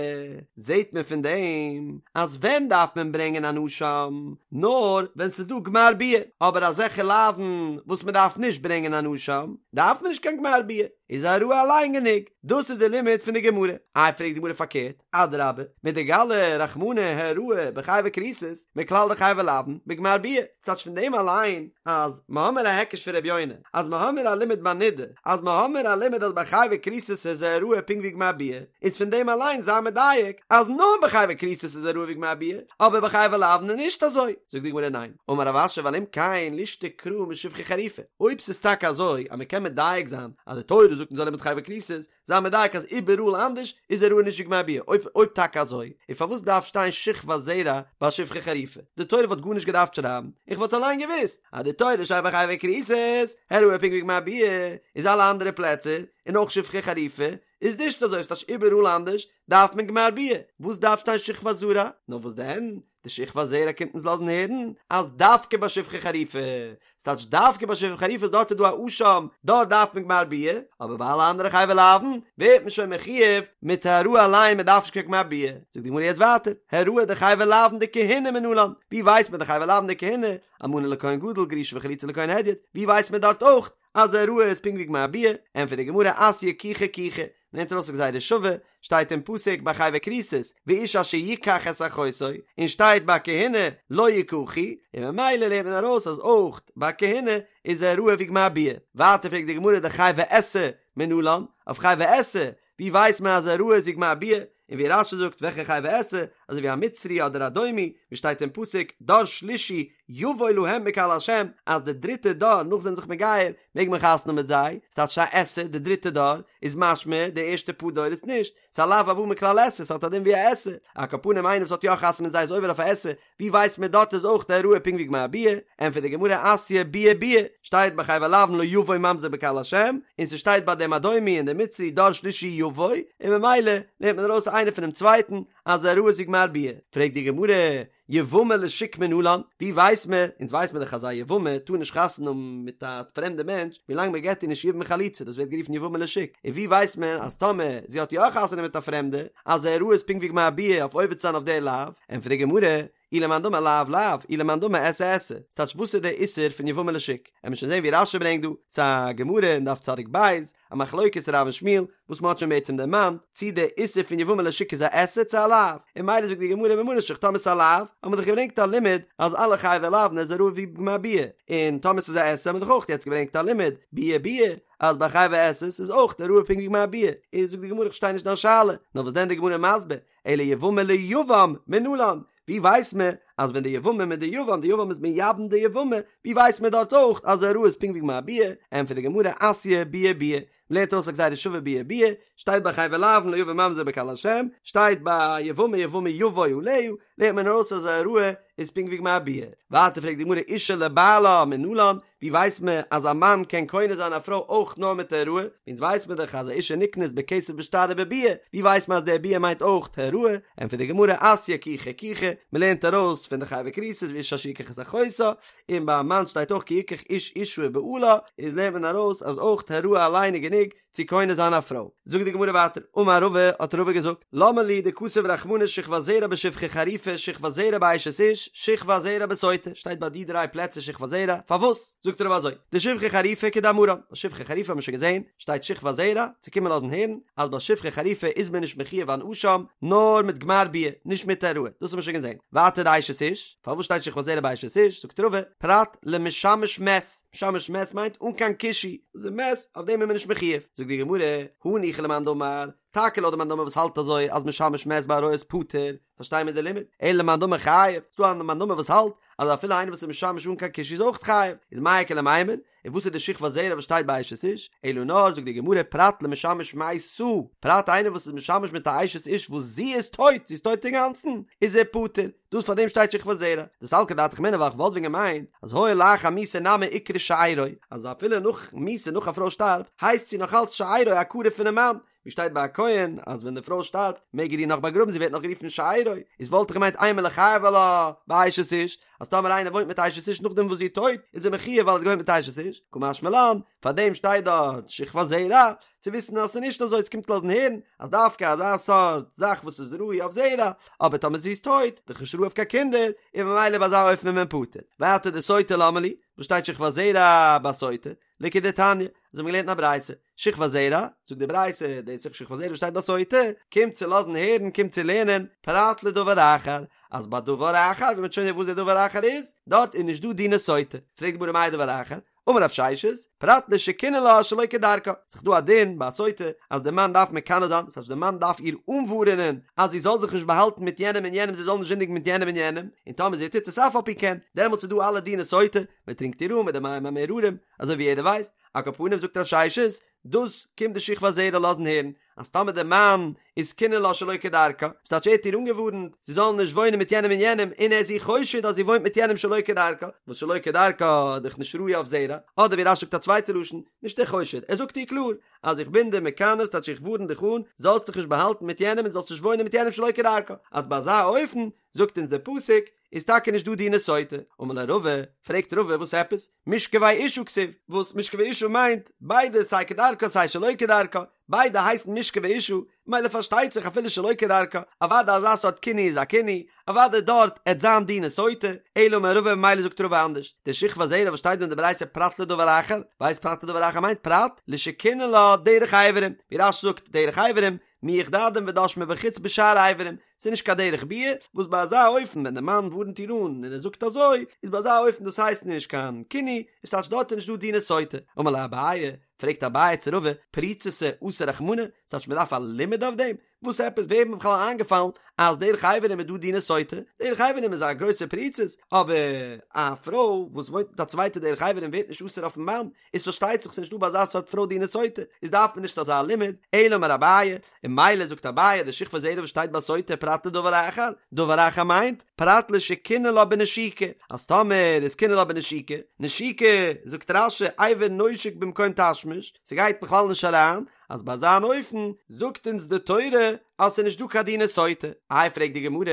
זעט מען פון דעם אז ווען דארף מען ברענגען אן אשם, נאר ווען ס'איז דא גמר ביאה, אבער אזעלכע לאווין וואס מען דארף נישט ברענגען אן אשם, דארף מען נישט קיין גמר ביאה, איז העראה אליין גענוג, דאס איז די לימוד פון די גמרא. איי פרעגט די גמרא פארקערט, אדרבה, מדגלי רחמנא העראה בחייבי כריתות, מכלל דחייבי לאוין, בגמר ביאה, ס'טייטש פון דעם אליין אז מ'האמיר א היקש פון ר' יונה, אז מ'האמיר א לימוד ביי נידה, אז מ'האמיר א לימוד אז ביי חייבי כריתות איז העראה פונקט ווי גמר ביאה, איז פון דעם אליין זיי מדייק אז נאר ביי חייבי כריתות איז העראה ווי גמר ביאה, אבער ביי חייבי לאוין איז נישט אזוי. זאגט די גמרא ניין, אמר רב אשי ווייל אם כן לישתוק קרא משפחה חרופה, אויב ס'איז טאקע אזוי אז מ'קען מדייק זיין אז די תורה זאגט אונז א לימוד חייבי כריתות, זיי מדייק אז איבעראל אנדערש איז העראה נישט ווי גמר ביאה, אויב אויב טאקע אזוי, איז פארוואס דארף שטיין שכבת זרע ביי שפחה חרופה? די תורה וואלט גארנישט געדארפט שרייבן, איך וואלט אליין געוואוסט אז די תורה שרייבט ביי חייבי כריתות, העראה פונקט ווי גמר ביאה, איז אלע אנדערע פלעצער, און אויך שפחה חרופה, איז נישט אזוי, ס'טייטש איבעראל אנדערש דארף מען גמר ביאה, וואס דארף שטיין שכבת זרע? נאר וואס דען? די שכבת זרע קומט אונז לאזן הערן אז דווקא ביי שפחה חרופה, ס'טייטש דווקא ביי שפחה חרופה איז דארט איז דא א אשם, דארט דארף מען גמר ביאה, אבער ביי אלע אנדערע חייבי לאוין ווערט מען שוין מחויב מיט העראה אליין מען דארף נישט קיין גמר ביאה. זאגט די גמרא יעצט ווייטער, העראה דחייבי לאוין דכהונה מנלן, ווי ווייסט מען דחייבי לאוין דכהונה, אלמנה לכהן גדול גרושה וחלוצה לכהן הדיוט, ווי ווייסט מען דארט אויך אז העראה איז פונקט ווי גמר ביאה, ענטפערט די גמרא אתיא קיחה קיחה, מ'לערנט ארויס א גזירה שווה, שטייט אין פסוק ביי חייבי כריתות, ואיש אשר יקח את אחותו, און שטייט ביי כהונה לא יקחו, און ממילא לערנט מען ארויס אז אויך ביי כהונה איז העראה ווי גמר ביאה. ווייטער פרעגט די גמרא דחייבי עשה מנלן, אויף חייבי עשה, ווי ווייסט מען אז העראה איז ווי גמר ביאה, און ווי רש"י זאגט וועלכע חייבי עשה, אזוי ווי א מצרי אדער אדומי, ווי שטייט אין פסוק דור שלישי יבוא להם בקהל השם, אז די דריטע דור נאך זיי זענען זיך מגייר מעג מען חתונה האבן מיט זיי, ס'טייטש א עשה די דריטע דור, איז משמע די ערשטע פאר דורות נישט, ס'איז א לאו הבא מכלל עשה, ס'האט א דין ווי א עשה, על כל פנים איינער וואס האט יא חתונה מיט זיי איז עובר אויף א עשה, ווי ווייסט מען דארט איז אויך די העראה פונקט ווי גמר ביאה, ענטפערט די גמרא אתיא ביאה ביאה, שטייט ביי חייבי לאוין לא יבוא ממזר בקהל השם, און ס'שטייט ביי דעם אדומי און דעם מצרי דור שלישי יבוא, און ממילא לערנט מען ארויס איינער פונעם צווייטן אז העראה איז ווי גמר ביאה, פרעגט די גמרא, יבמה לשוק מנלן, ווי ווייסט מען, אונז ווייסט מען דאך אז א יבמה טאר נישט חתונה האבן מיט א פרעמדע מענטש ווילאנג מען געט איר נישט יבום וחליצה, דאס ווערט גערופן יבמה לשוק, און ווי ווייסט מען אז טאמער זי האט יא חתונה מיט א פרעמדע, אז העראה איז פונקט ווי גמר ביאה אויף עובר צו זיין אויף דער לאו, ענטפערט די גמרא, אי למאן דאמר לאו לאו, אי למאן דאמר עשה עשה, ס'טייטש וואס איז דער איסור פון יבמה לשוק? עמיר שוין זען ווי רש"י ברענגט דא, ס'איז א גמרא אין דף צדיק בית, א מחלוקת רב און שמואל, וואס מ'האט שוין בעצם דערמאנט, צי דער איסור פון יבמה לשוק איז א עשה צו א לאו, און ממילא זאגט די גמרא ממה נפשך טאמער ס'איז א לאו, האט מען דאך געברענגט א לימוד אז אלע חייבי לאוין איז העראה ווי גמר ביאה, און טאמער ס'איז א עשה האט מען דאך אויך יעצט געברענגט א לימוד, ביאה ביאה, אז ביי חייבי עשה'ס איז אויך העראה פונקט ווי גמר ביאה, איז זאגט די גמרא איך פארשטיי נישט דיין שאלה, נאר וואס דען די גמרא מסביר, אלא יבמה ליבם מנלן, ווי ווייסט מען אז ווען די יבמה מיט די יבם, די יבם איז מייבם די יבמה, ווי ווייסט מען דארט אויך אז העראה איז פונקט ווי גמר ביאה, ענטפערט די גמרא אתיא ביאה ביאה, מ'לערנט ארויס א גזירה שווה ביאה ביאה, שטייט ביי חייבי לאוין לא יבא ממזר בקהל השם, שטייט ביי יבמה יבמה יבוא עליה, לערנט מען ארויס אז העראה איז פונקט ווי גמר ביאה. ווייטער פרעגט די גמרא אשה לבעלה מנלן, ווי ווייסט מען אז א מאן קען קונה זיין א פרוי אויך נאר מיט העראה? אונז ווייסט מען דאך אז א אשה נקנית בכסף בשטר ובביאה, ווי ווייסט מען אז די ביאה מיינט אויך העראה? ענטפערט די גמרא אתיא קיחה קיחה, מען לערנט ארויס פון די חייבי כריתות ואיש אשר יקח את אחותה, און ביי א מאן שטייט אויך כי יקח איש אשה ובעלה, איז לערנט מען ארויס אז אויך העראה אליין איז גענוג צו קונה זיין א פרוי. זאגט די גמרא ווייטער, אמר רבא, האט רבא געזאגט, למה לי דכתב רחמנא שכבת זרע בשפחה חרופה שכבת זרע באשת איש שכבת זרע בסוטה, שטייט ביי די דריי פלעצער שכבת זרע, פארוואס? זאגט רבא אזוי, דשפחה חרופה כדאמרן, ביי שפחה חרופה האט מען שוין געזען, שטייט שכבת זרע, צו קומען לאזן הערן, אז ביי שפחה חרופה איז מען נישט מחויב אן אשם, נאר מיט גמר ביאה, נישט מיט העראה, דאס האט מען שוין געזען. ווייטער די אשת איש, פארוואס שטייט שכבת זרע ביי אשת איש? זאגט רבא, פרט למשמש מת, משמש מת מיינט אן קיין קישוי, דאס איז מת, אויף דעם איז מען נישט מחויב. זאגט די גמרא, הניחא למאן דאמר, טאקע לויט די מאן דאמר וואס האלט אזוי אז משמש מת בעריות פטור, פארשטיי מיר די לימוד, אלא למאן דאמר חייב, ס'דא א מאן דאמר וואס האלט. אז אפילו איינער וואס איז משמש אן קיין קישוי איז אויך חייב, איז מאי איכא למימר, און וואס איז די שכבת זרע וואס שטייט ביי אשת איש? אלא נאר זאגט די גמרא פרט למשמש מתה, פרט איינער וואס איז משמש מיט א אשת איש וואס זי איז טויט, זי איז טויט אינגאנצן, איז ער פטור, דאס פאר דעם שטייט שכבת זרע, דסלקא דעתך אמינא ווייל כ'וואלט ווען געמיינט אז הואיל לאחר מיתה נמי איקרי שארו, אז אפילו נאך מיתה נאך א פרוי שטארבט הייסט זי נאך אלץ שארו א קרוב פונעם מאן, ווי שטייט ביי א כהן אז ווען די פרוי שטארבט מעג ער איר נאך באגראבן זי ווערט נאך גערופן שארו, איז וואלט איך געמיינט אימא ליחייב עלה באשת איש, אז טאמער איינער וואוינט מיט אשת איש נאכדעם וואס זי איז טויט איז ער מחויב ווייל ער האט געוואוינט מיט אשת איש, קא משמע לן, פארדעם שטייט דארט שכבת זרע, צו וויסן אז ס'איז נישט אזוי, ס'קומט לאזן הערן אז דווקא אזא סארט זאך וואס איז ראוי אויף זרע, אבער טאמער זי איז טויט, דאך נישט ראוי אויף קיין קינדער, און ממילא ביי אזא אופן איז מען פטור. ווייטער דסוטה למה לי, וואס שטייט שכבת זרע ביי סוטה? לכדתניא, אזוי האבן מיר געלערנט אין א ברייתא, שכבת זרע, זאגט די ברייתא, דאס איז שכבת זרע וואס שטייט ביי סוטה, קומט צו לאזן הערן, קומט צו לערנען, פרט לדבר אחר, אז ביי דבר אחר, ווי מ'וועט שוין זען וואס דער דבר אחר איז, דארט איז נישט דא דיני סוטה. פרעגט די גמרא מאי דבר אחר, אמר רב ששת, פרט לשקינא לה שלא כדרכה, ס'איז דא א דין ביי א סוטה אז דער מאן דארף מקנא זיין, דאס הייסט דער מאן דארף איר אנווארענען אז זי זאל זיך נישט באהאלטן מיט יענעם און יענעם, זי זאל נישט זינדיגן מיט יענעם און יענעם, און טאמער זי טוט עס אף על פי כן, דעמאלטס איז דא אלע דיני סוטה, מען טרינקט איר אן מיט די מים המאררים, אזוי ווי יעדער ווייסט, על כל פנים זאגט רב ששת, דאס קומט די שכבת זרע לאזן הערן, אז טאמער דער מאן איז קינא לה שלא כדרכה, ס'טייטש ער האט איר אנגעווארנט זי זאל נישט וואוינען מיט יענעם און יענעם, און ער איז איר חושד אז זי וואוינט מיט יענעם שלא כדרכה, וואס שלא כדרכה איז דאך נישט ראוי אויף זרע, אדער ווי רש"י זאגט א צווייטע לשון, נישט ער חושד, ער זאגט איר קלאר, אז איך בין דיר מקנא, ס'טייטש איך ווארן דיך אן, זאלסט זיך נישט באהאלטן מיט יענעם און זאלסט נישט וואוינען מיט יענעם שלא כדרכה, אז ביי אזא אופן, זאגט אונז דער פסוק, איז טאקע נישט דא דיני סוטה, אמר ליה רבא, פרעגט רבא וואס עפעס, משכבי אשה כתיב, וואס משכבי אשה מיינט, ביידע סיי כדרכה סיי שלא כדרכה, ביידע הייסן משכבי אשה, מילא פארשטייט זיך אפילו שלא כדרכה, אוודאי אזא סארט קינוי איז א קינוי, אוודאי דארט עט זיין דיני סוטה, אלא אמר רבא ממילא זאגט רבא אנדערש, די שכבת זרע וואס שטייט דא אין די ברייתא פרט לדבר אחר, ווייסט פרט לדבר אחר מיינט פרט לשקינא לה דרך אברים, ווי רש"י זאגט דרך אברים, מיח דדים ודש מבחוץ בשאר איברים, ס'איז נישט קיין דרך ביאה, וואס ביי אזא אופן ווען די מאן ווארנט איר אן און ער זאגט אזוי, איז ביי אזא אופן דאס הייסט נישט קיין קינוי, איז טייטש דארט איז נישט דא דיני סוטה. אמר ליה אביי, פרעגט אביי צו רבא, פריצותא אסר רחמנא, ס'טייטש מ'דארף א לימוד אויף דעם? וואס עפעס וועם איז בכלל איינגעפאלן אז דרך אברים איז דא דיני סוטה? דרך אברים איז א גרויסע פריצות, אבער א פרוי וואס וואוינט מיט א צווייטע דרך אברים ווערט נישט אסור אויפן מאן, איז פארשטייט זיך ס'נישט דא ביי אזא סארט פרוי דיני סוטה, איז דארף מען נישט אזא לימוד, אלא אמר אביי, און מילא זאגט אביי די שכבת זרע וואס שטייט ביי סוטה פרט לדבר אחר, דבר אחר מיינט, פרט לשקינא לה בנשיקה, אז טאמער איז קינא לה בנשיקה, נשיקה, זאגט רש"י, אבר נושק במקום תשמיש, ס'גייט בכלל נישט אריין, אז ביי אזא אן אופן זאגט אונז די תורה אז ס'איז נישט דא קיין דיני סוטה. איי פרעגט די גמרא,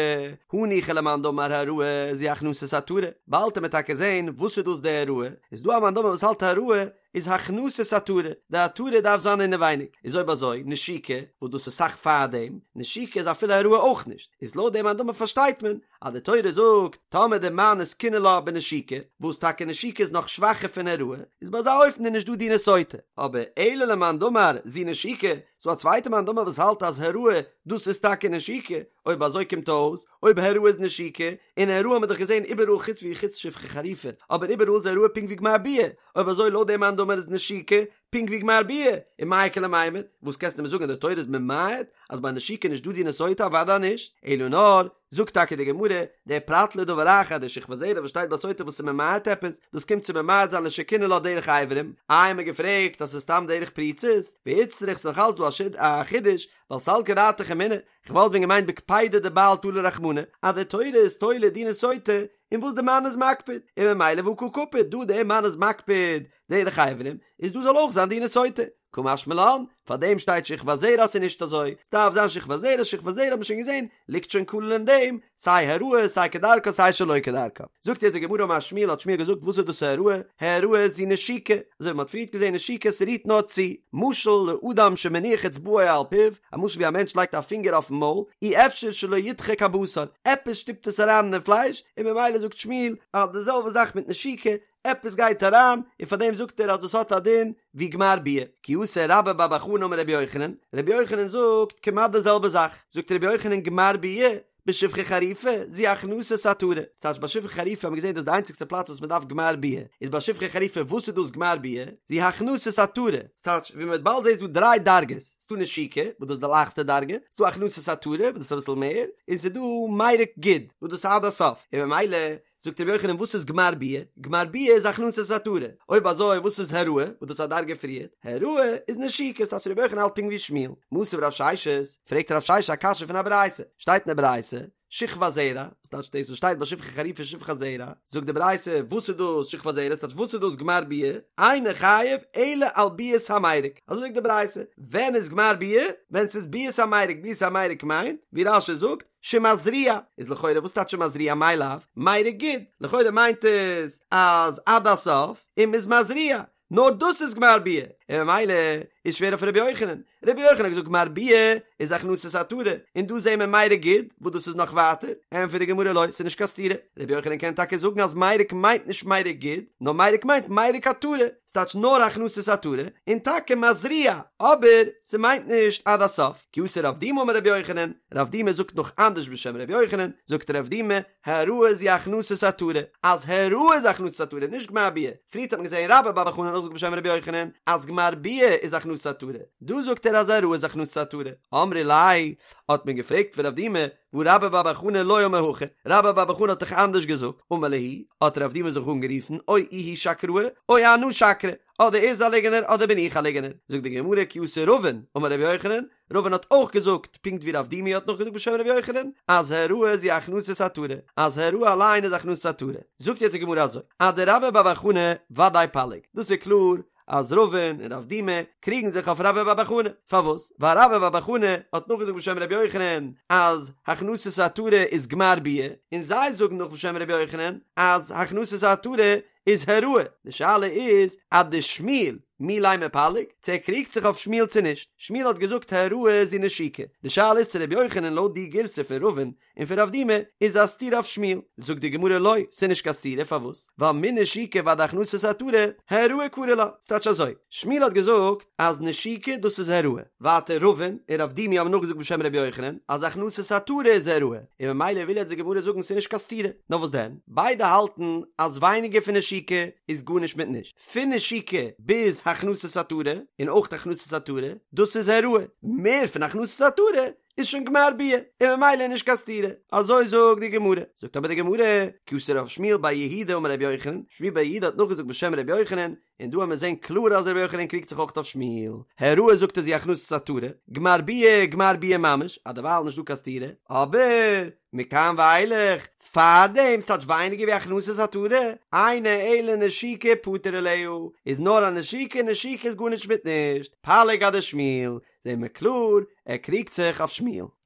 הניחא למאן דאמר העראה זו הכנסת עטרה, באלד וועט מען טאקע זען וואס איז דאס די העראה, איז דא א מאן דאמר וואס האלט העראה איז הכנסת עטרה, די עטרה דארף זיין אינעווייניג, איז אויב אזוי נשיקה, וואס דאס איז סאך פארדעם, נשיקה איז אפילו העראה אויך נישט, איז לויט דעם מאן דאמר פארשטייט מען אז די תורה זאגט טאמער די מאן איז קינא לה בנשיקה, וואס טאקע נשיקה איז נאך שוואכער פון העראה, איז ביי אזא אופן איז נישט דא דיני סוטה, אבער אלא למאן דאמר זו נשיקה, ס'דא א צווייטע מאן דאמר וואס האלט אז העראה דאס איז טאקע נשיקה, אויב אזוי קומט אויס אויב העראה איז נשיקה, און העראה האט מען דאך געזען איבעראל חוץ ווי חוץ שפחה חרופה, אבער איבעראל איז העראה פונקט ווי גמר ביאה, אויב אזוי לויט דעם מאן דאמר איז נשיקה פונקט ווי גמר ביאה, און מאי איכא למימר, וואס קענסטו מיר זאגן אז די תורה איז ממעט אז ביי נשיקה נישט דא דיני סוטה אוודאי נישט, אלא נאר, זאגט טאקע די גמרא, דער פרט לדבר אחר, די שכבת זרע וואס שטייט ביי סוטה וואס איז ממעט עפעס, דאס קומט צו ממעט זיין לשקינא לה דרך אברים, איי האט מען געפרעגט אז ס'איז סתם דרך פריצות, ואיצטריך ס'איז נאך אלץ דא א חידוש, ווייל סלקא דעתך אמינא, כ'וואלט ווען געמיינט בקפידא דבעל תלה רחמנא, אז די תורה איז תולה דיני סוטה אין וואס די מאן איז מקפיד, און ממילא והא קא קפיד, דא דער מאן איז מקפיד דרך אברים, איז דא זאל אויך זיין דיני סוטה. קא משמע לן, פאר דעם שטייט שכבת זרע אז ס'איז נישט אזוי, ס'דארף זיין שכבת זרע, שכבת זרע האט מען שוין געזען, ליגט שוין כולל אין דעם, סיי העראה, סיי כדרכה, סיי שלא כדרכה. זאגט יעצט די גמרא אמר שמואל האט שמואל געזאגט וואס איז דאס העראה, העראה זו נשיקה, אזוי ווי מ'האט פריערט געזען נשיקה ס'רירט נאר צו, משל לאדם שמניח אצבעו על פיו, א משל ווי א מענטש לייגט א פינגער אויפן מויל, אי אפשר שלא ידחק הבשר, עפעס שטופט עס אריין אינעם פלייש, און ממילא זאגט שמואל אז די זעלבע זאך מיט נשיקה, עפעס גייט אריין, און פאר דעם זאגט ער אז דאס האט א דין ווי גמר ביאה. כי אתא רבה בר בר חנה אמר רבי יוחנן, רבי יוחנן זאגט כמעט די זעלבע זאך, זאגט רבי יוחנן גמר ביאה בשפחה חרופה זו הכנסת עטרה, ס'טייטש ביי שפחה חרופה האט מען געזען דאס איז די איינציגסטע פלאץ וואס מען דארף גמר ביאה, איז ביי שפחה חרופה וואס איז דאס גמר ביאה? זו הכנסת עטרה, ס'טייטש ווי מען וועט באלד זען איז דא דריי דרגות, ס'דא נשיקה וואס דאס איז די לייכסטע דרגה, ס'דא הכנסת עטרה וואס דאס איז אביסל מער, און ס'דא מירוק גיד וואס דאס איז עד הסוף, און ממילא. זאגט רבי יוחנן וואס איז גמר ביאה? גמר ביאה איז הכנסת עטרה, אויב אזוי וואס איז העראה וואס דאס איז א דרגה פריער? העראה איז נשיקה, ס'טייטש רבי יוחנן האלט פונקט ווי שמואל. מתיב רב ששת, פרעגט רב ששת א קשיא פון א ברייתא, שטייט אין די ברייתא, שכבת זרע, וואס טייטש דאס וואס שטייט ביי שפחה חרופה שכבת זרע, זאגט די ברייתא וואס איז דאס שכבת זרע, ס'טייטש וואס איז דאס גמר ביאה, אינו חייב אלא על ביאת המירק, אזוי זאגט די ברייתא, ווען איז גמר ביאה? ווען ס'איז ביאת המירק, ביאת המירק מיינט, ווי רש"י זאגט, שמזריע, איז לכאורה וואס טייטש שמזריע מאי לאו, מירק גוד, לכאורה מיינט עס אז עד הסוף, און מ'איז מזריע, נאר דאס איז גמר ביאה, און ממילא איז שווער אויף רבי יוחנן, רבי יוחנן האט געזאגט גמר ביאה איז הכנסת עטרה, און דא זעהן מיר מירק גוד, וואס דאס איז נאך ווייטער, ענטפערט די גמרא לא, ס'איז נישט קיין סתירה, רבי יוחנן קען טאקע זאגן אז מירק מיינט נישט מירק גוד, נאר מירק מיינט מירק עטרה, ס'טייטש נאר הכנסת עטרה, און טאקע מזריע, אבער ס'מיינט נישט עד הסוף, כי אתא רב דימי אמר רבי יוחנן, רב דימי זאגט נאך אנדערש בשם רבי יוחנן, זאגט רב דימי, העראה זו הכנסת עטרה, אז העראה איז הכנסת עטרה, נישט גמר ביאה, פריערט האט מען געזען רבה בר בר חנה נאכזאגט בשם רבי יוחנן אז גמר ביאה איז הכנסת עטרה, דא זאגט ער אז העראה איז הכנסת עטרה, אמרי ליה, האט מען געפרעגט פון רב דימי, והא רבה בר בר חנה לא אמר הכי, רבה בר בר חנה האט דאך אנדערש געזאגט, אמר להו, האט רב דימי זיך אנגערופן, או איהו שקראי, או אנא שקרי, אדער ער איז א ליגענער אדער בין איך א ליגענער, זאגט די גמרא כי אתא רבין, אמר רבי יוחנן, רבין האט אויך געזאגט, פונקט ווי רב דימי האט נאכגעזאגט בשם רבי יוחנן, אז העראה זו הכנסת עטרה, אז העראה אליין איז הכנסת עטרה. זאגט יעצט די גמרא אזוי, אדרבה בר בר חנה ודאי פליג, דאס איז קלאר אז רבין און רב דימי קריגן זיך אויף רבה בר בר חנה, פארוואס? ווייל רבה בר בר חנה האט נאכגעזאגט בשם רבי יוחנן אז הכנסת עטרה איז גמר ביאה, און זיי זאגן נאך בשם רבי יוחנן אז הכנסת עטרה איז העראה, די שאלה איז אדשמואל מי לימא פליג, צו ער קריגט זיך אויף שמואל צו נישט, שמואל האט געזאגט העראה זו נשיקה, די שאלה איז צו רבי יוחנן לויט די גירסא פון רבין און פון רב דימי איז א סתירה אויף שמואל, זאגט די גמרא לא, ס'איז נישט קיין סתירה, פארוואס? ווייל מנשיקה ועד הכנסת עטרה, העראה קרי לה, ס'טייטש אזוי, שמואל האט געזאגט אז נשיקה דאס איז העראה, ווייטער רבין און רב דימי האבן נאכגעזאגט בשם רבי יוחנן אז הכנסת עטרה איז העראה, און ממילא וויל יעצט די גמרא זאגן ס'איז נישט קיין סתירה, נאר וואס דען? ביידע האלטן אז ווייניגער פון נשיקה איז גארנישט מיט נישט, פון נשיקה ביז הכנסת עטרה, און אויך הכנסת עטרה, דאס איז העראה, מער פון הכנסת עטרה איז שוין גמר ביאה, און ממילא איז נישט קיין סתירה, אזוי זאגט די גמרא, זאגט אבער די גמרא, כי אתא רב שמואל בר יהודה אמר רבי יוחנן, שמואל בר יהודה האט נאכגעזאגט בשם רבי יוחנן, און דא וועלן מיר זעהן קלאר אז רבי יוחנן קריגט זיך אויך אויף שמואל, העראה זאגט ער זו הכנסת עטרה, גמר ביאה גמר ביאה ממש, אז דערווייל נישט דא קיין סתירה, אבער מכאן ואילך, פארדעם ס'טייטש ווייניגער ווי הכנסת עטרה, אינה אלא נשיקה פטור עליה, איז נאר א נשיקה, נשיקה איז גארנישט מיט נישט, פליג אדשמואל, זעהן מיר קלאר, ער קריגט זיך אויף שמואל.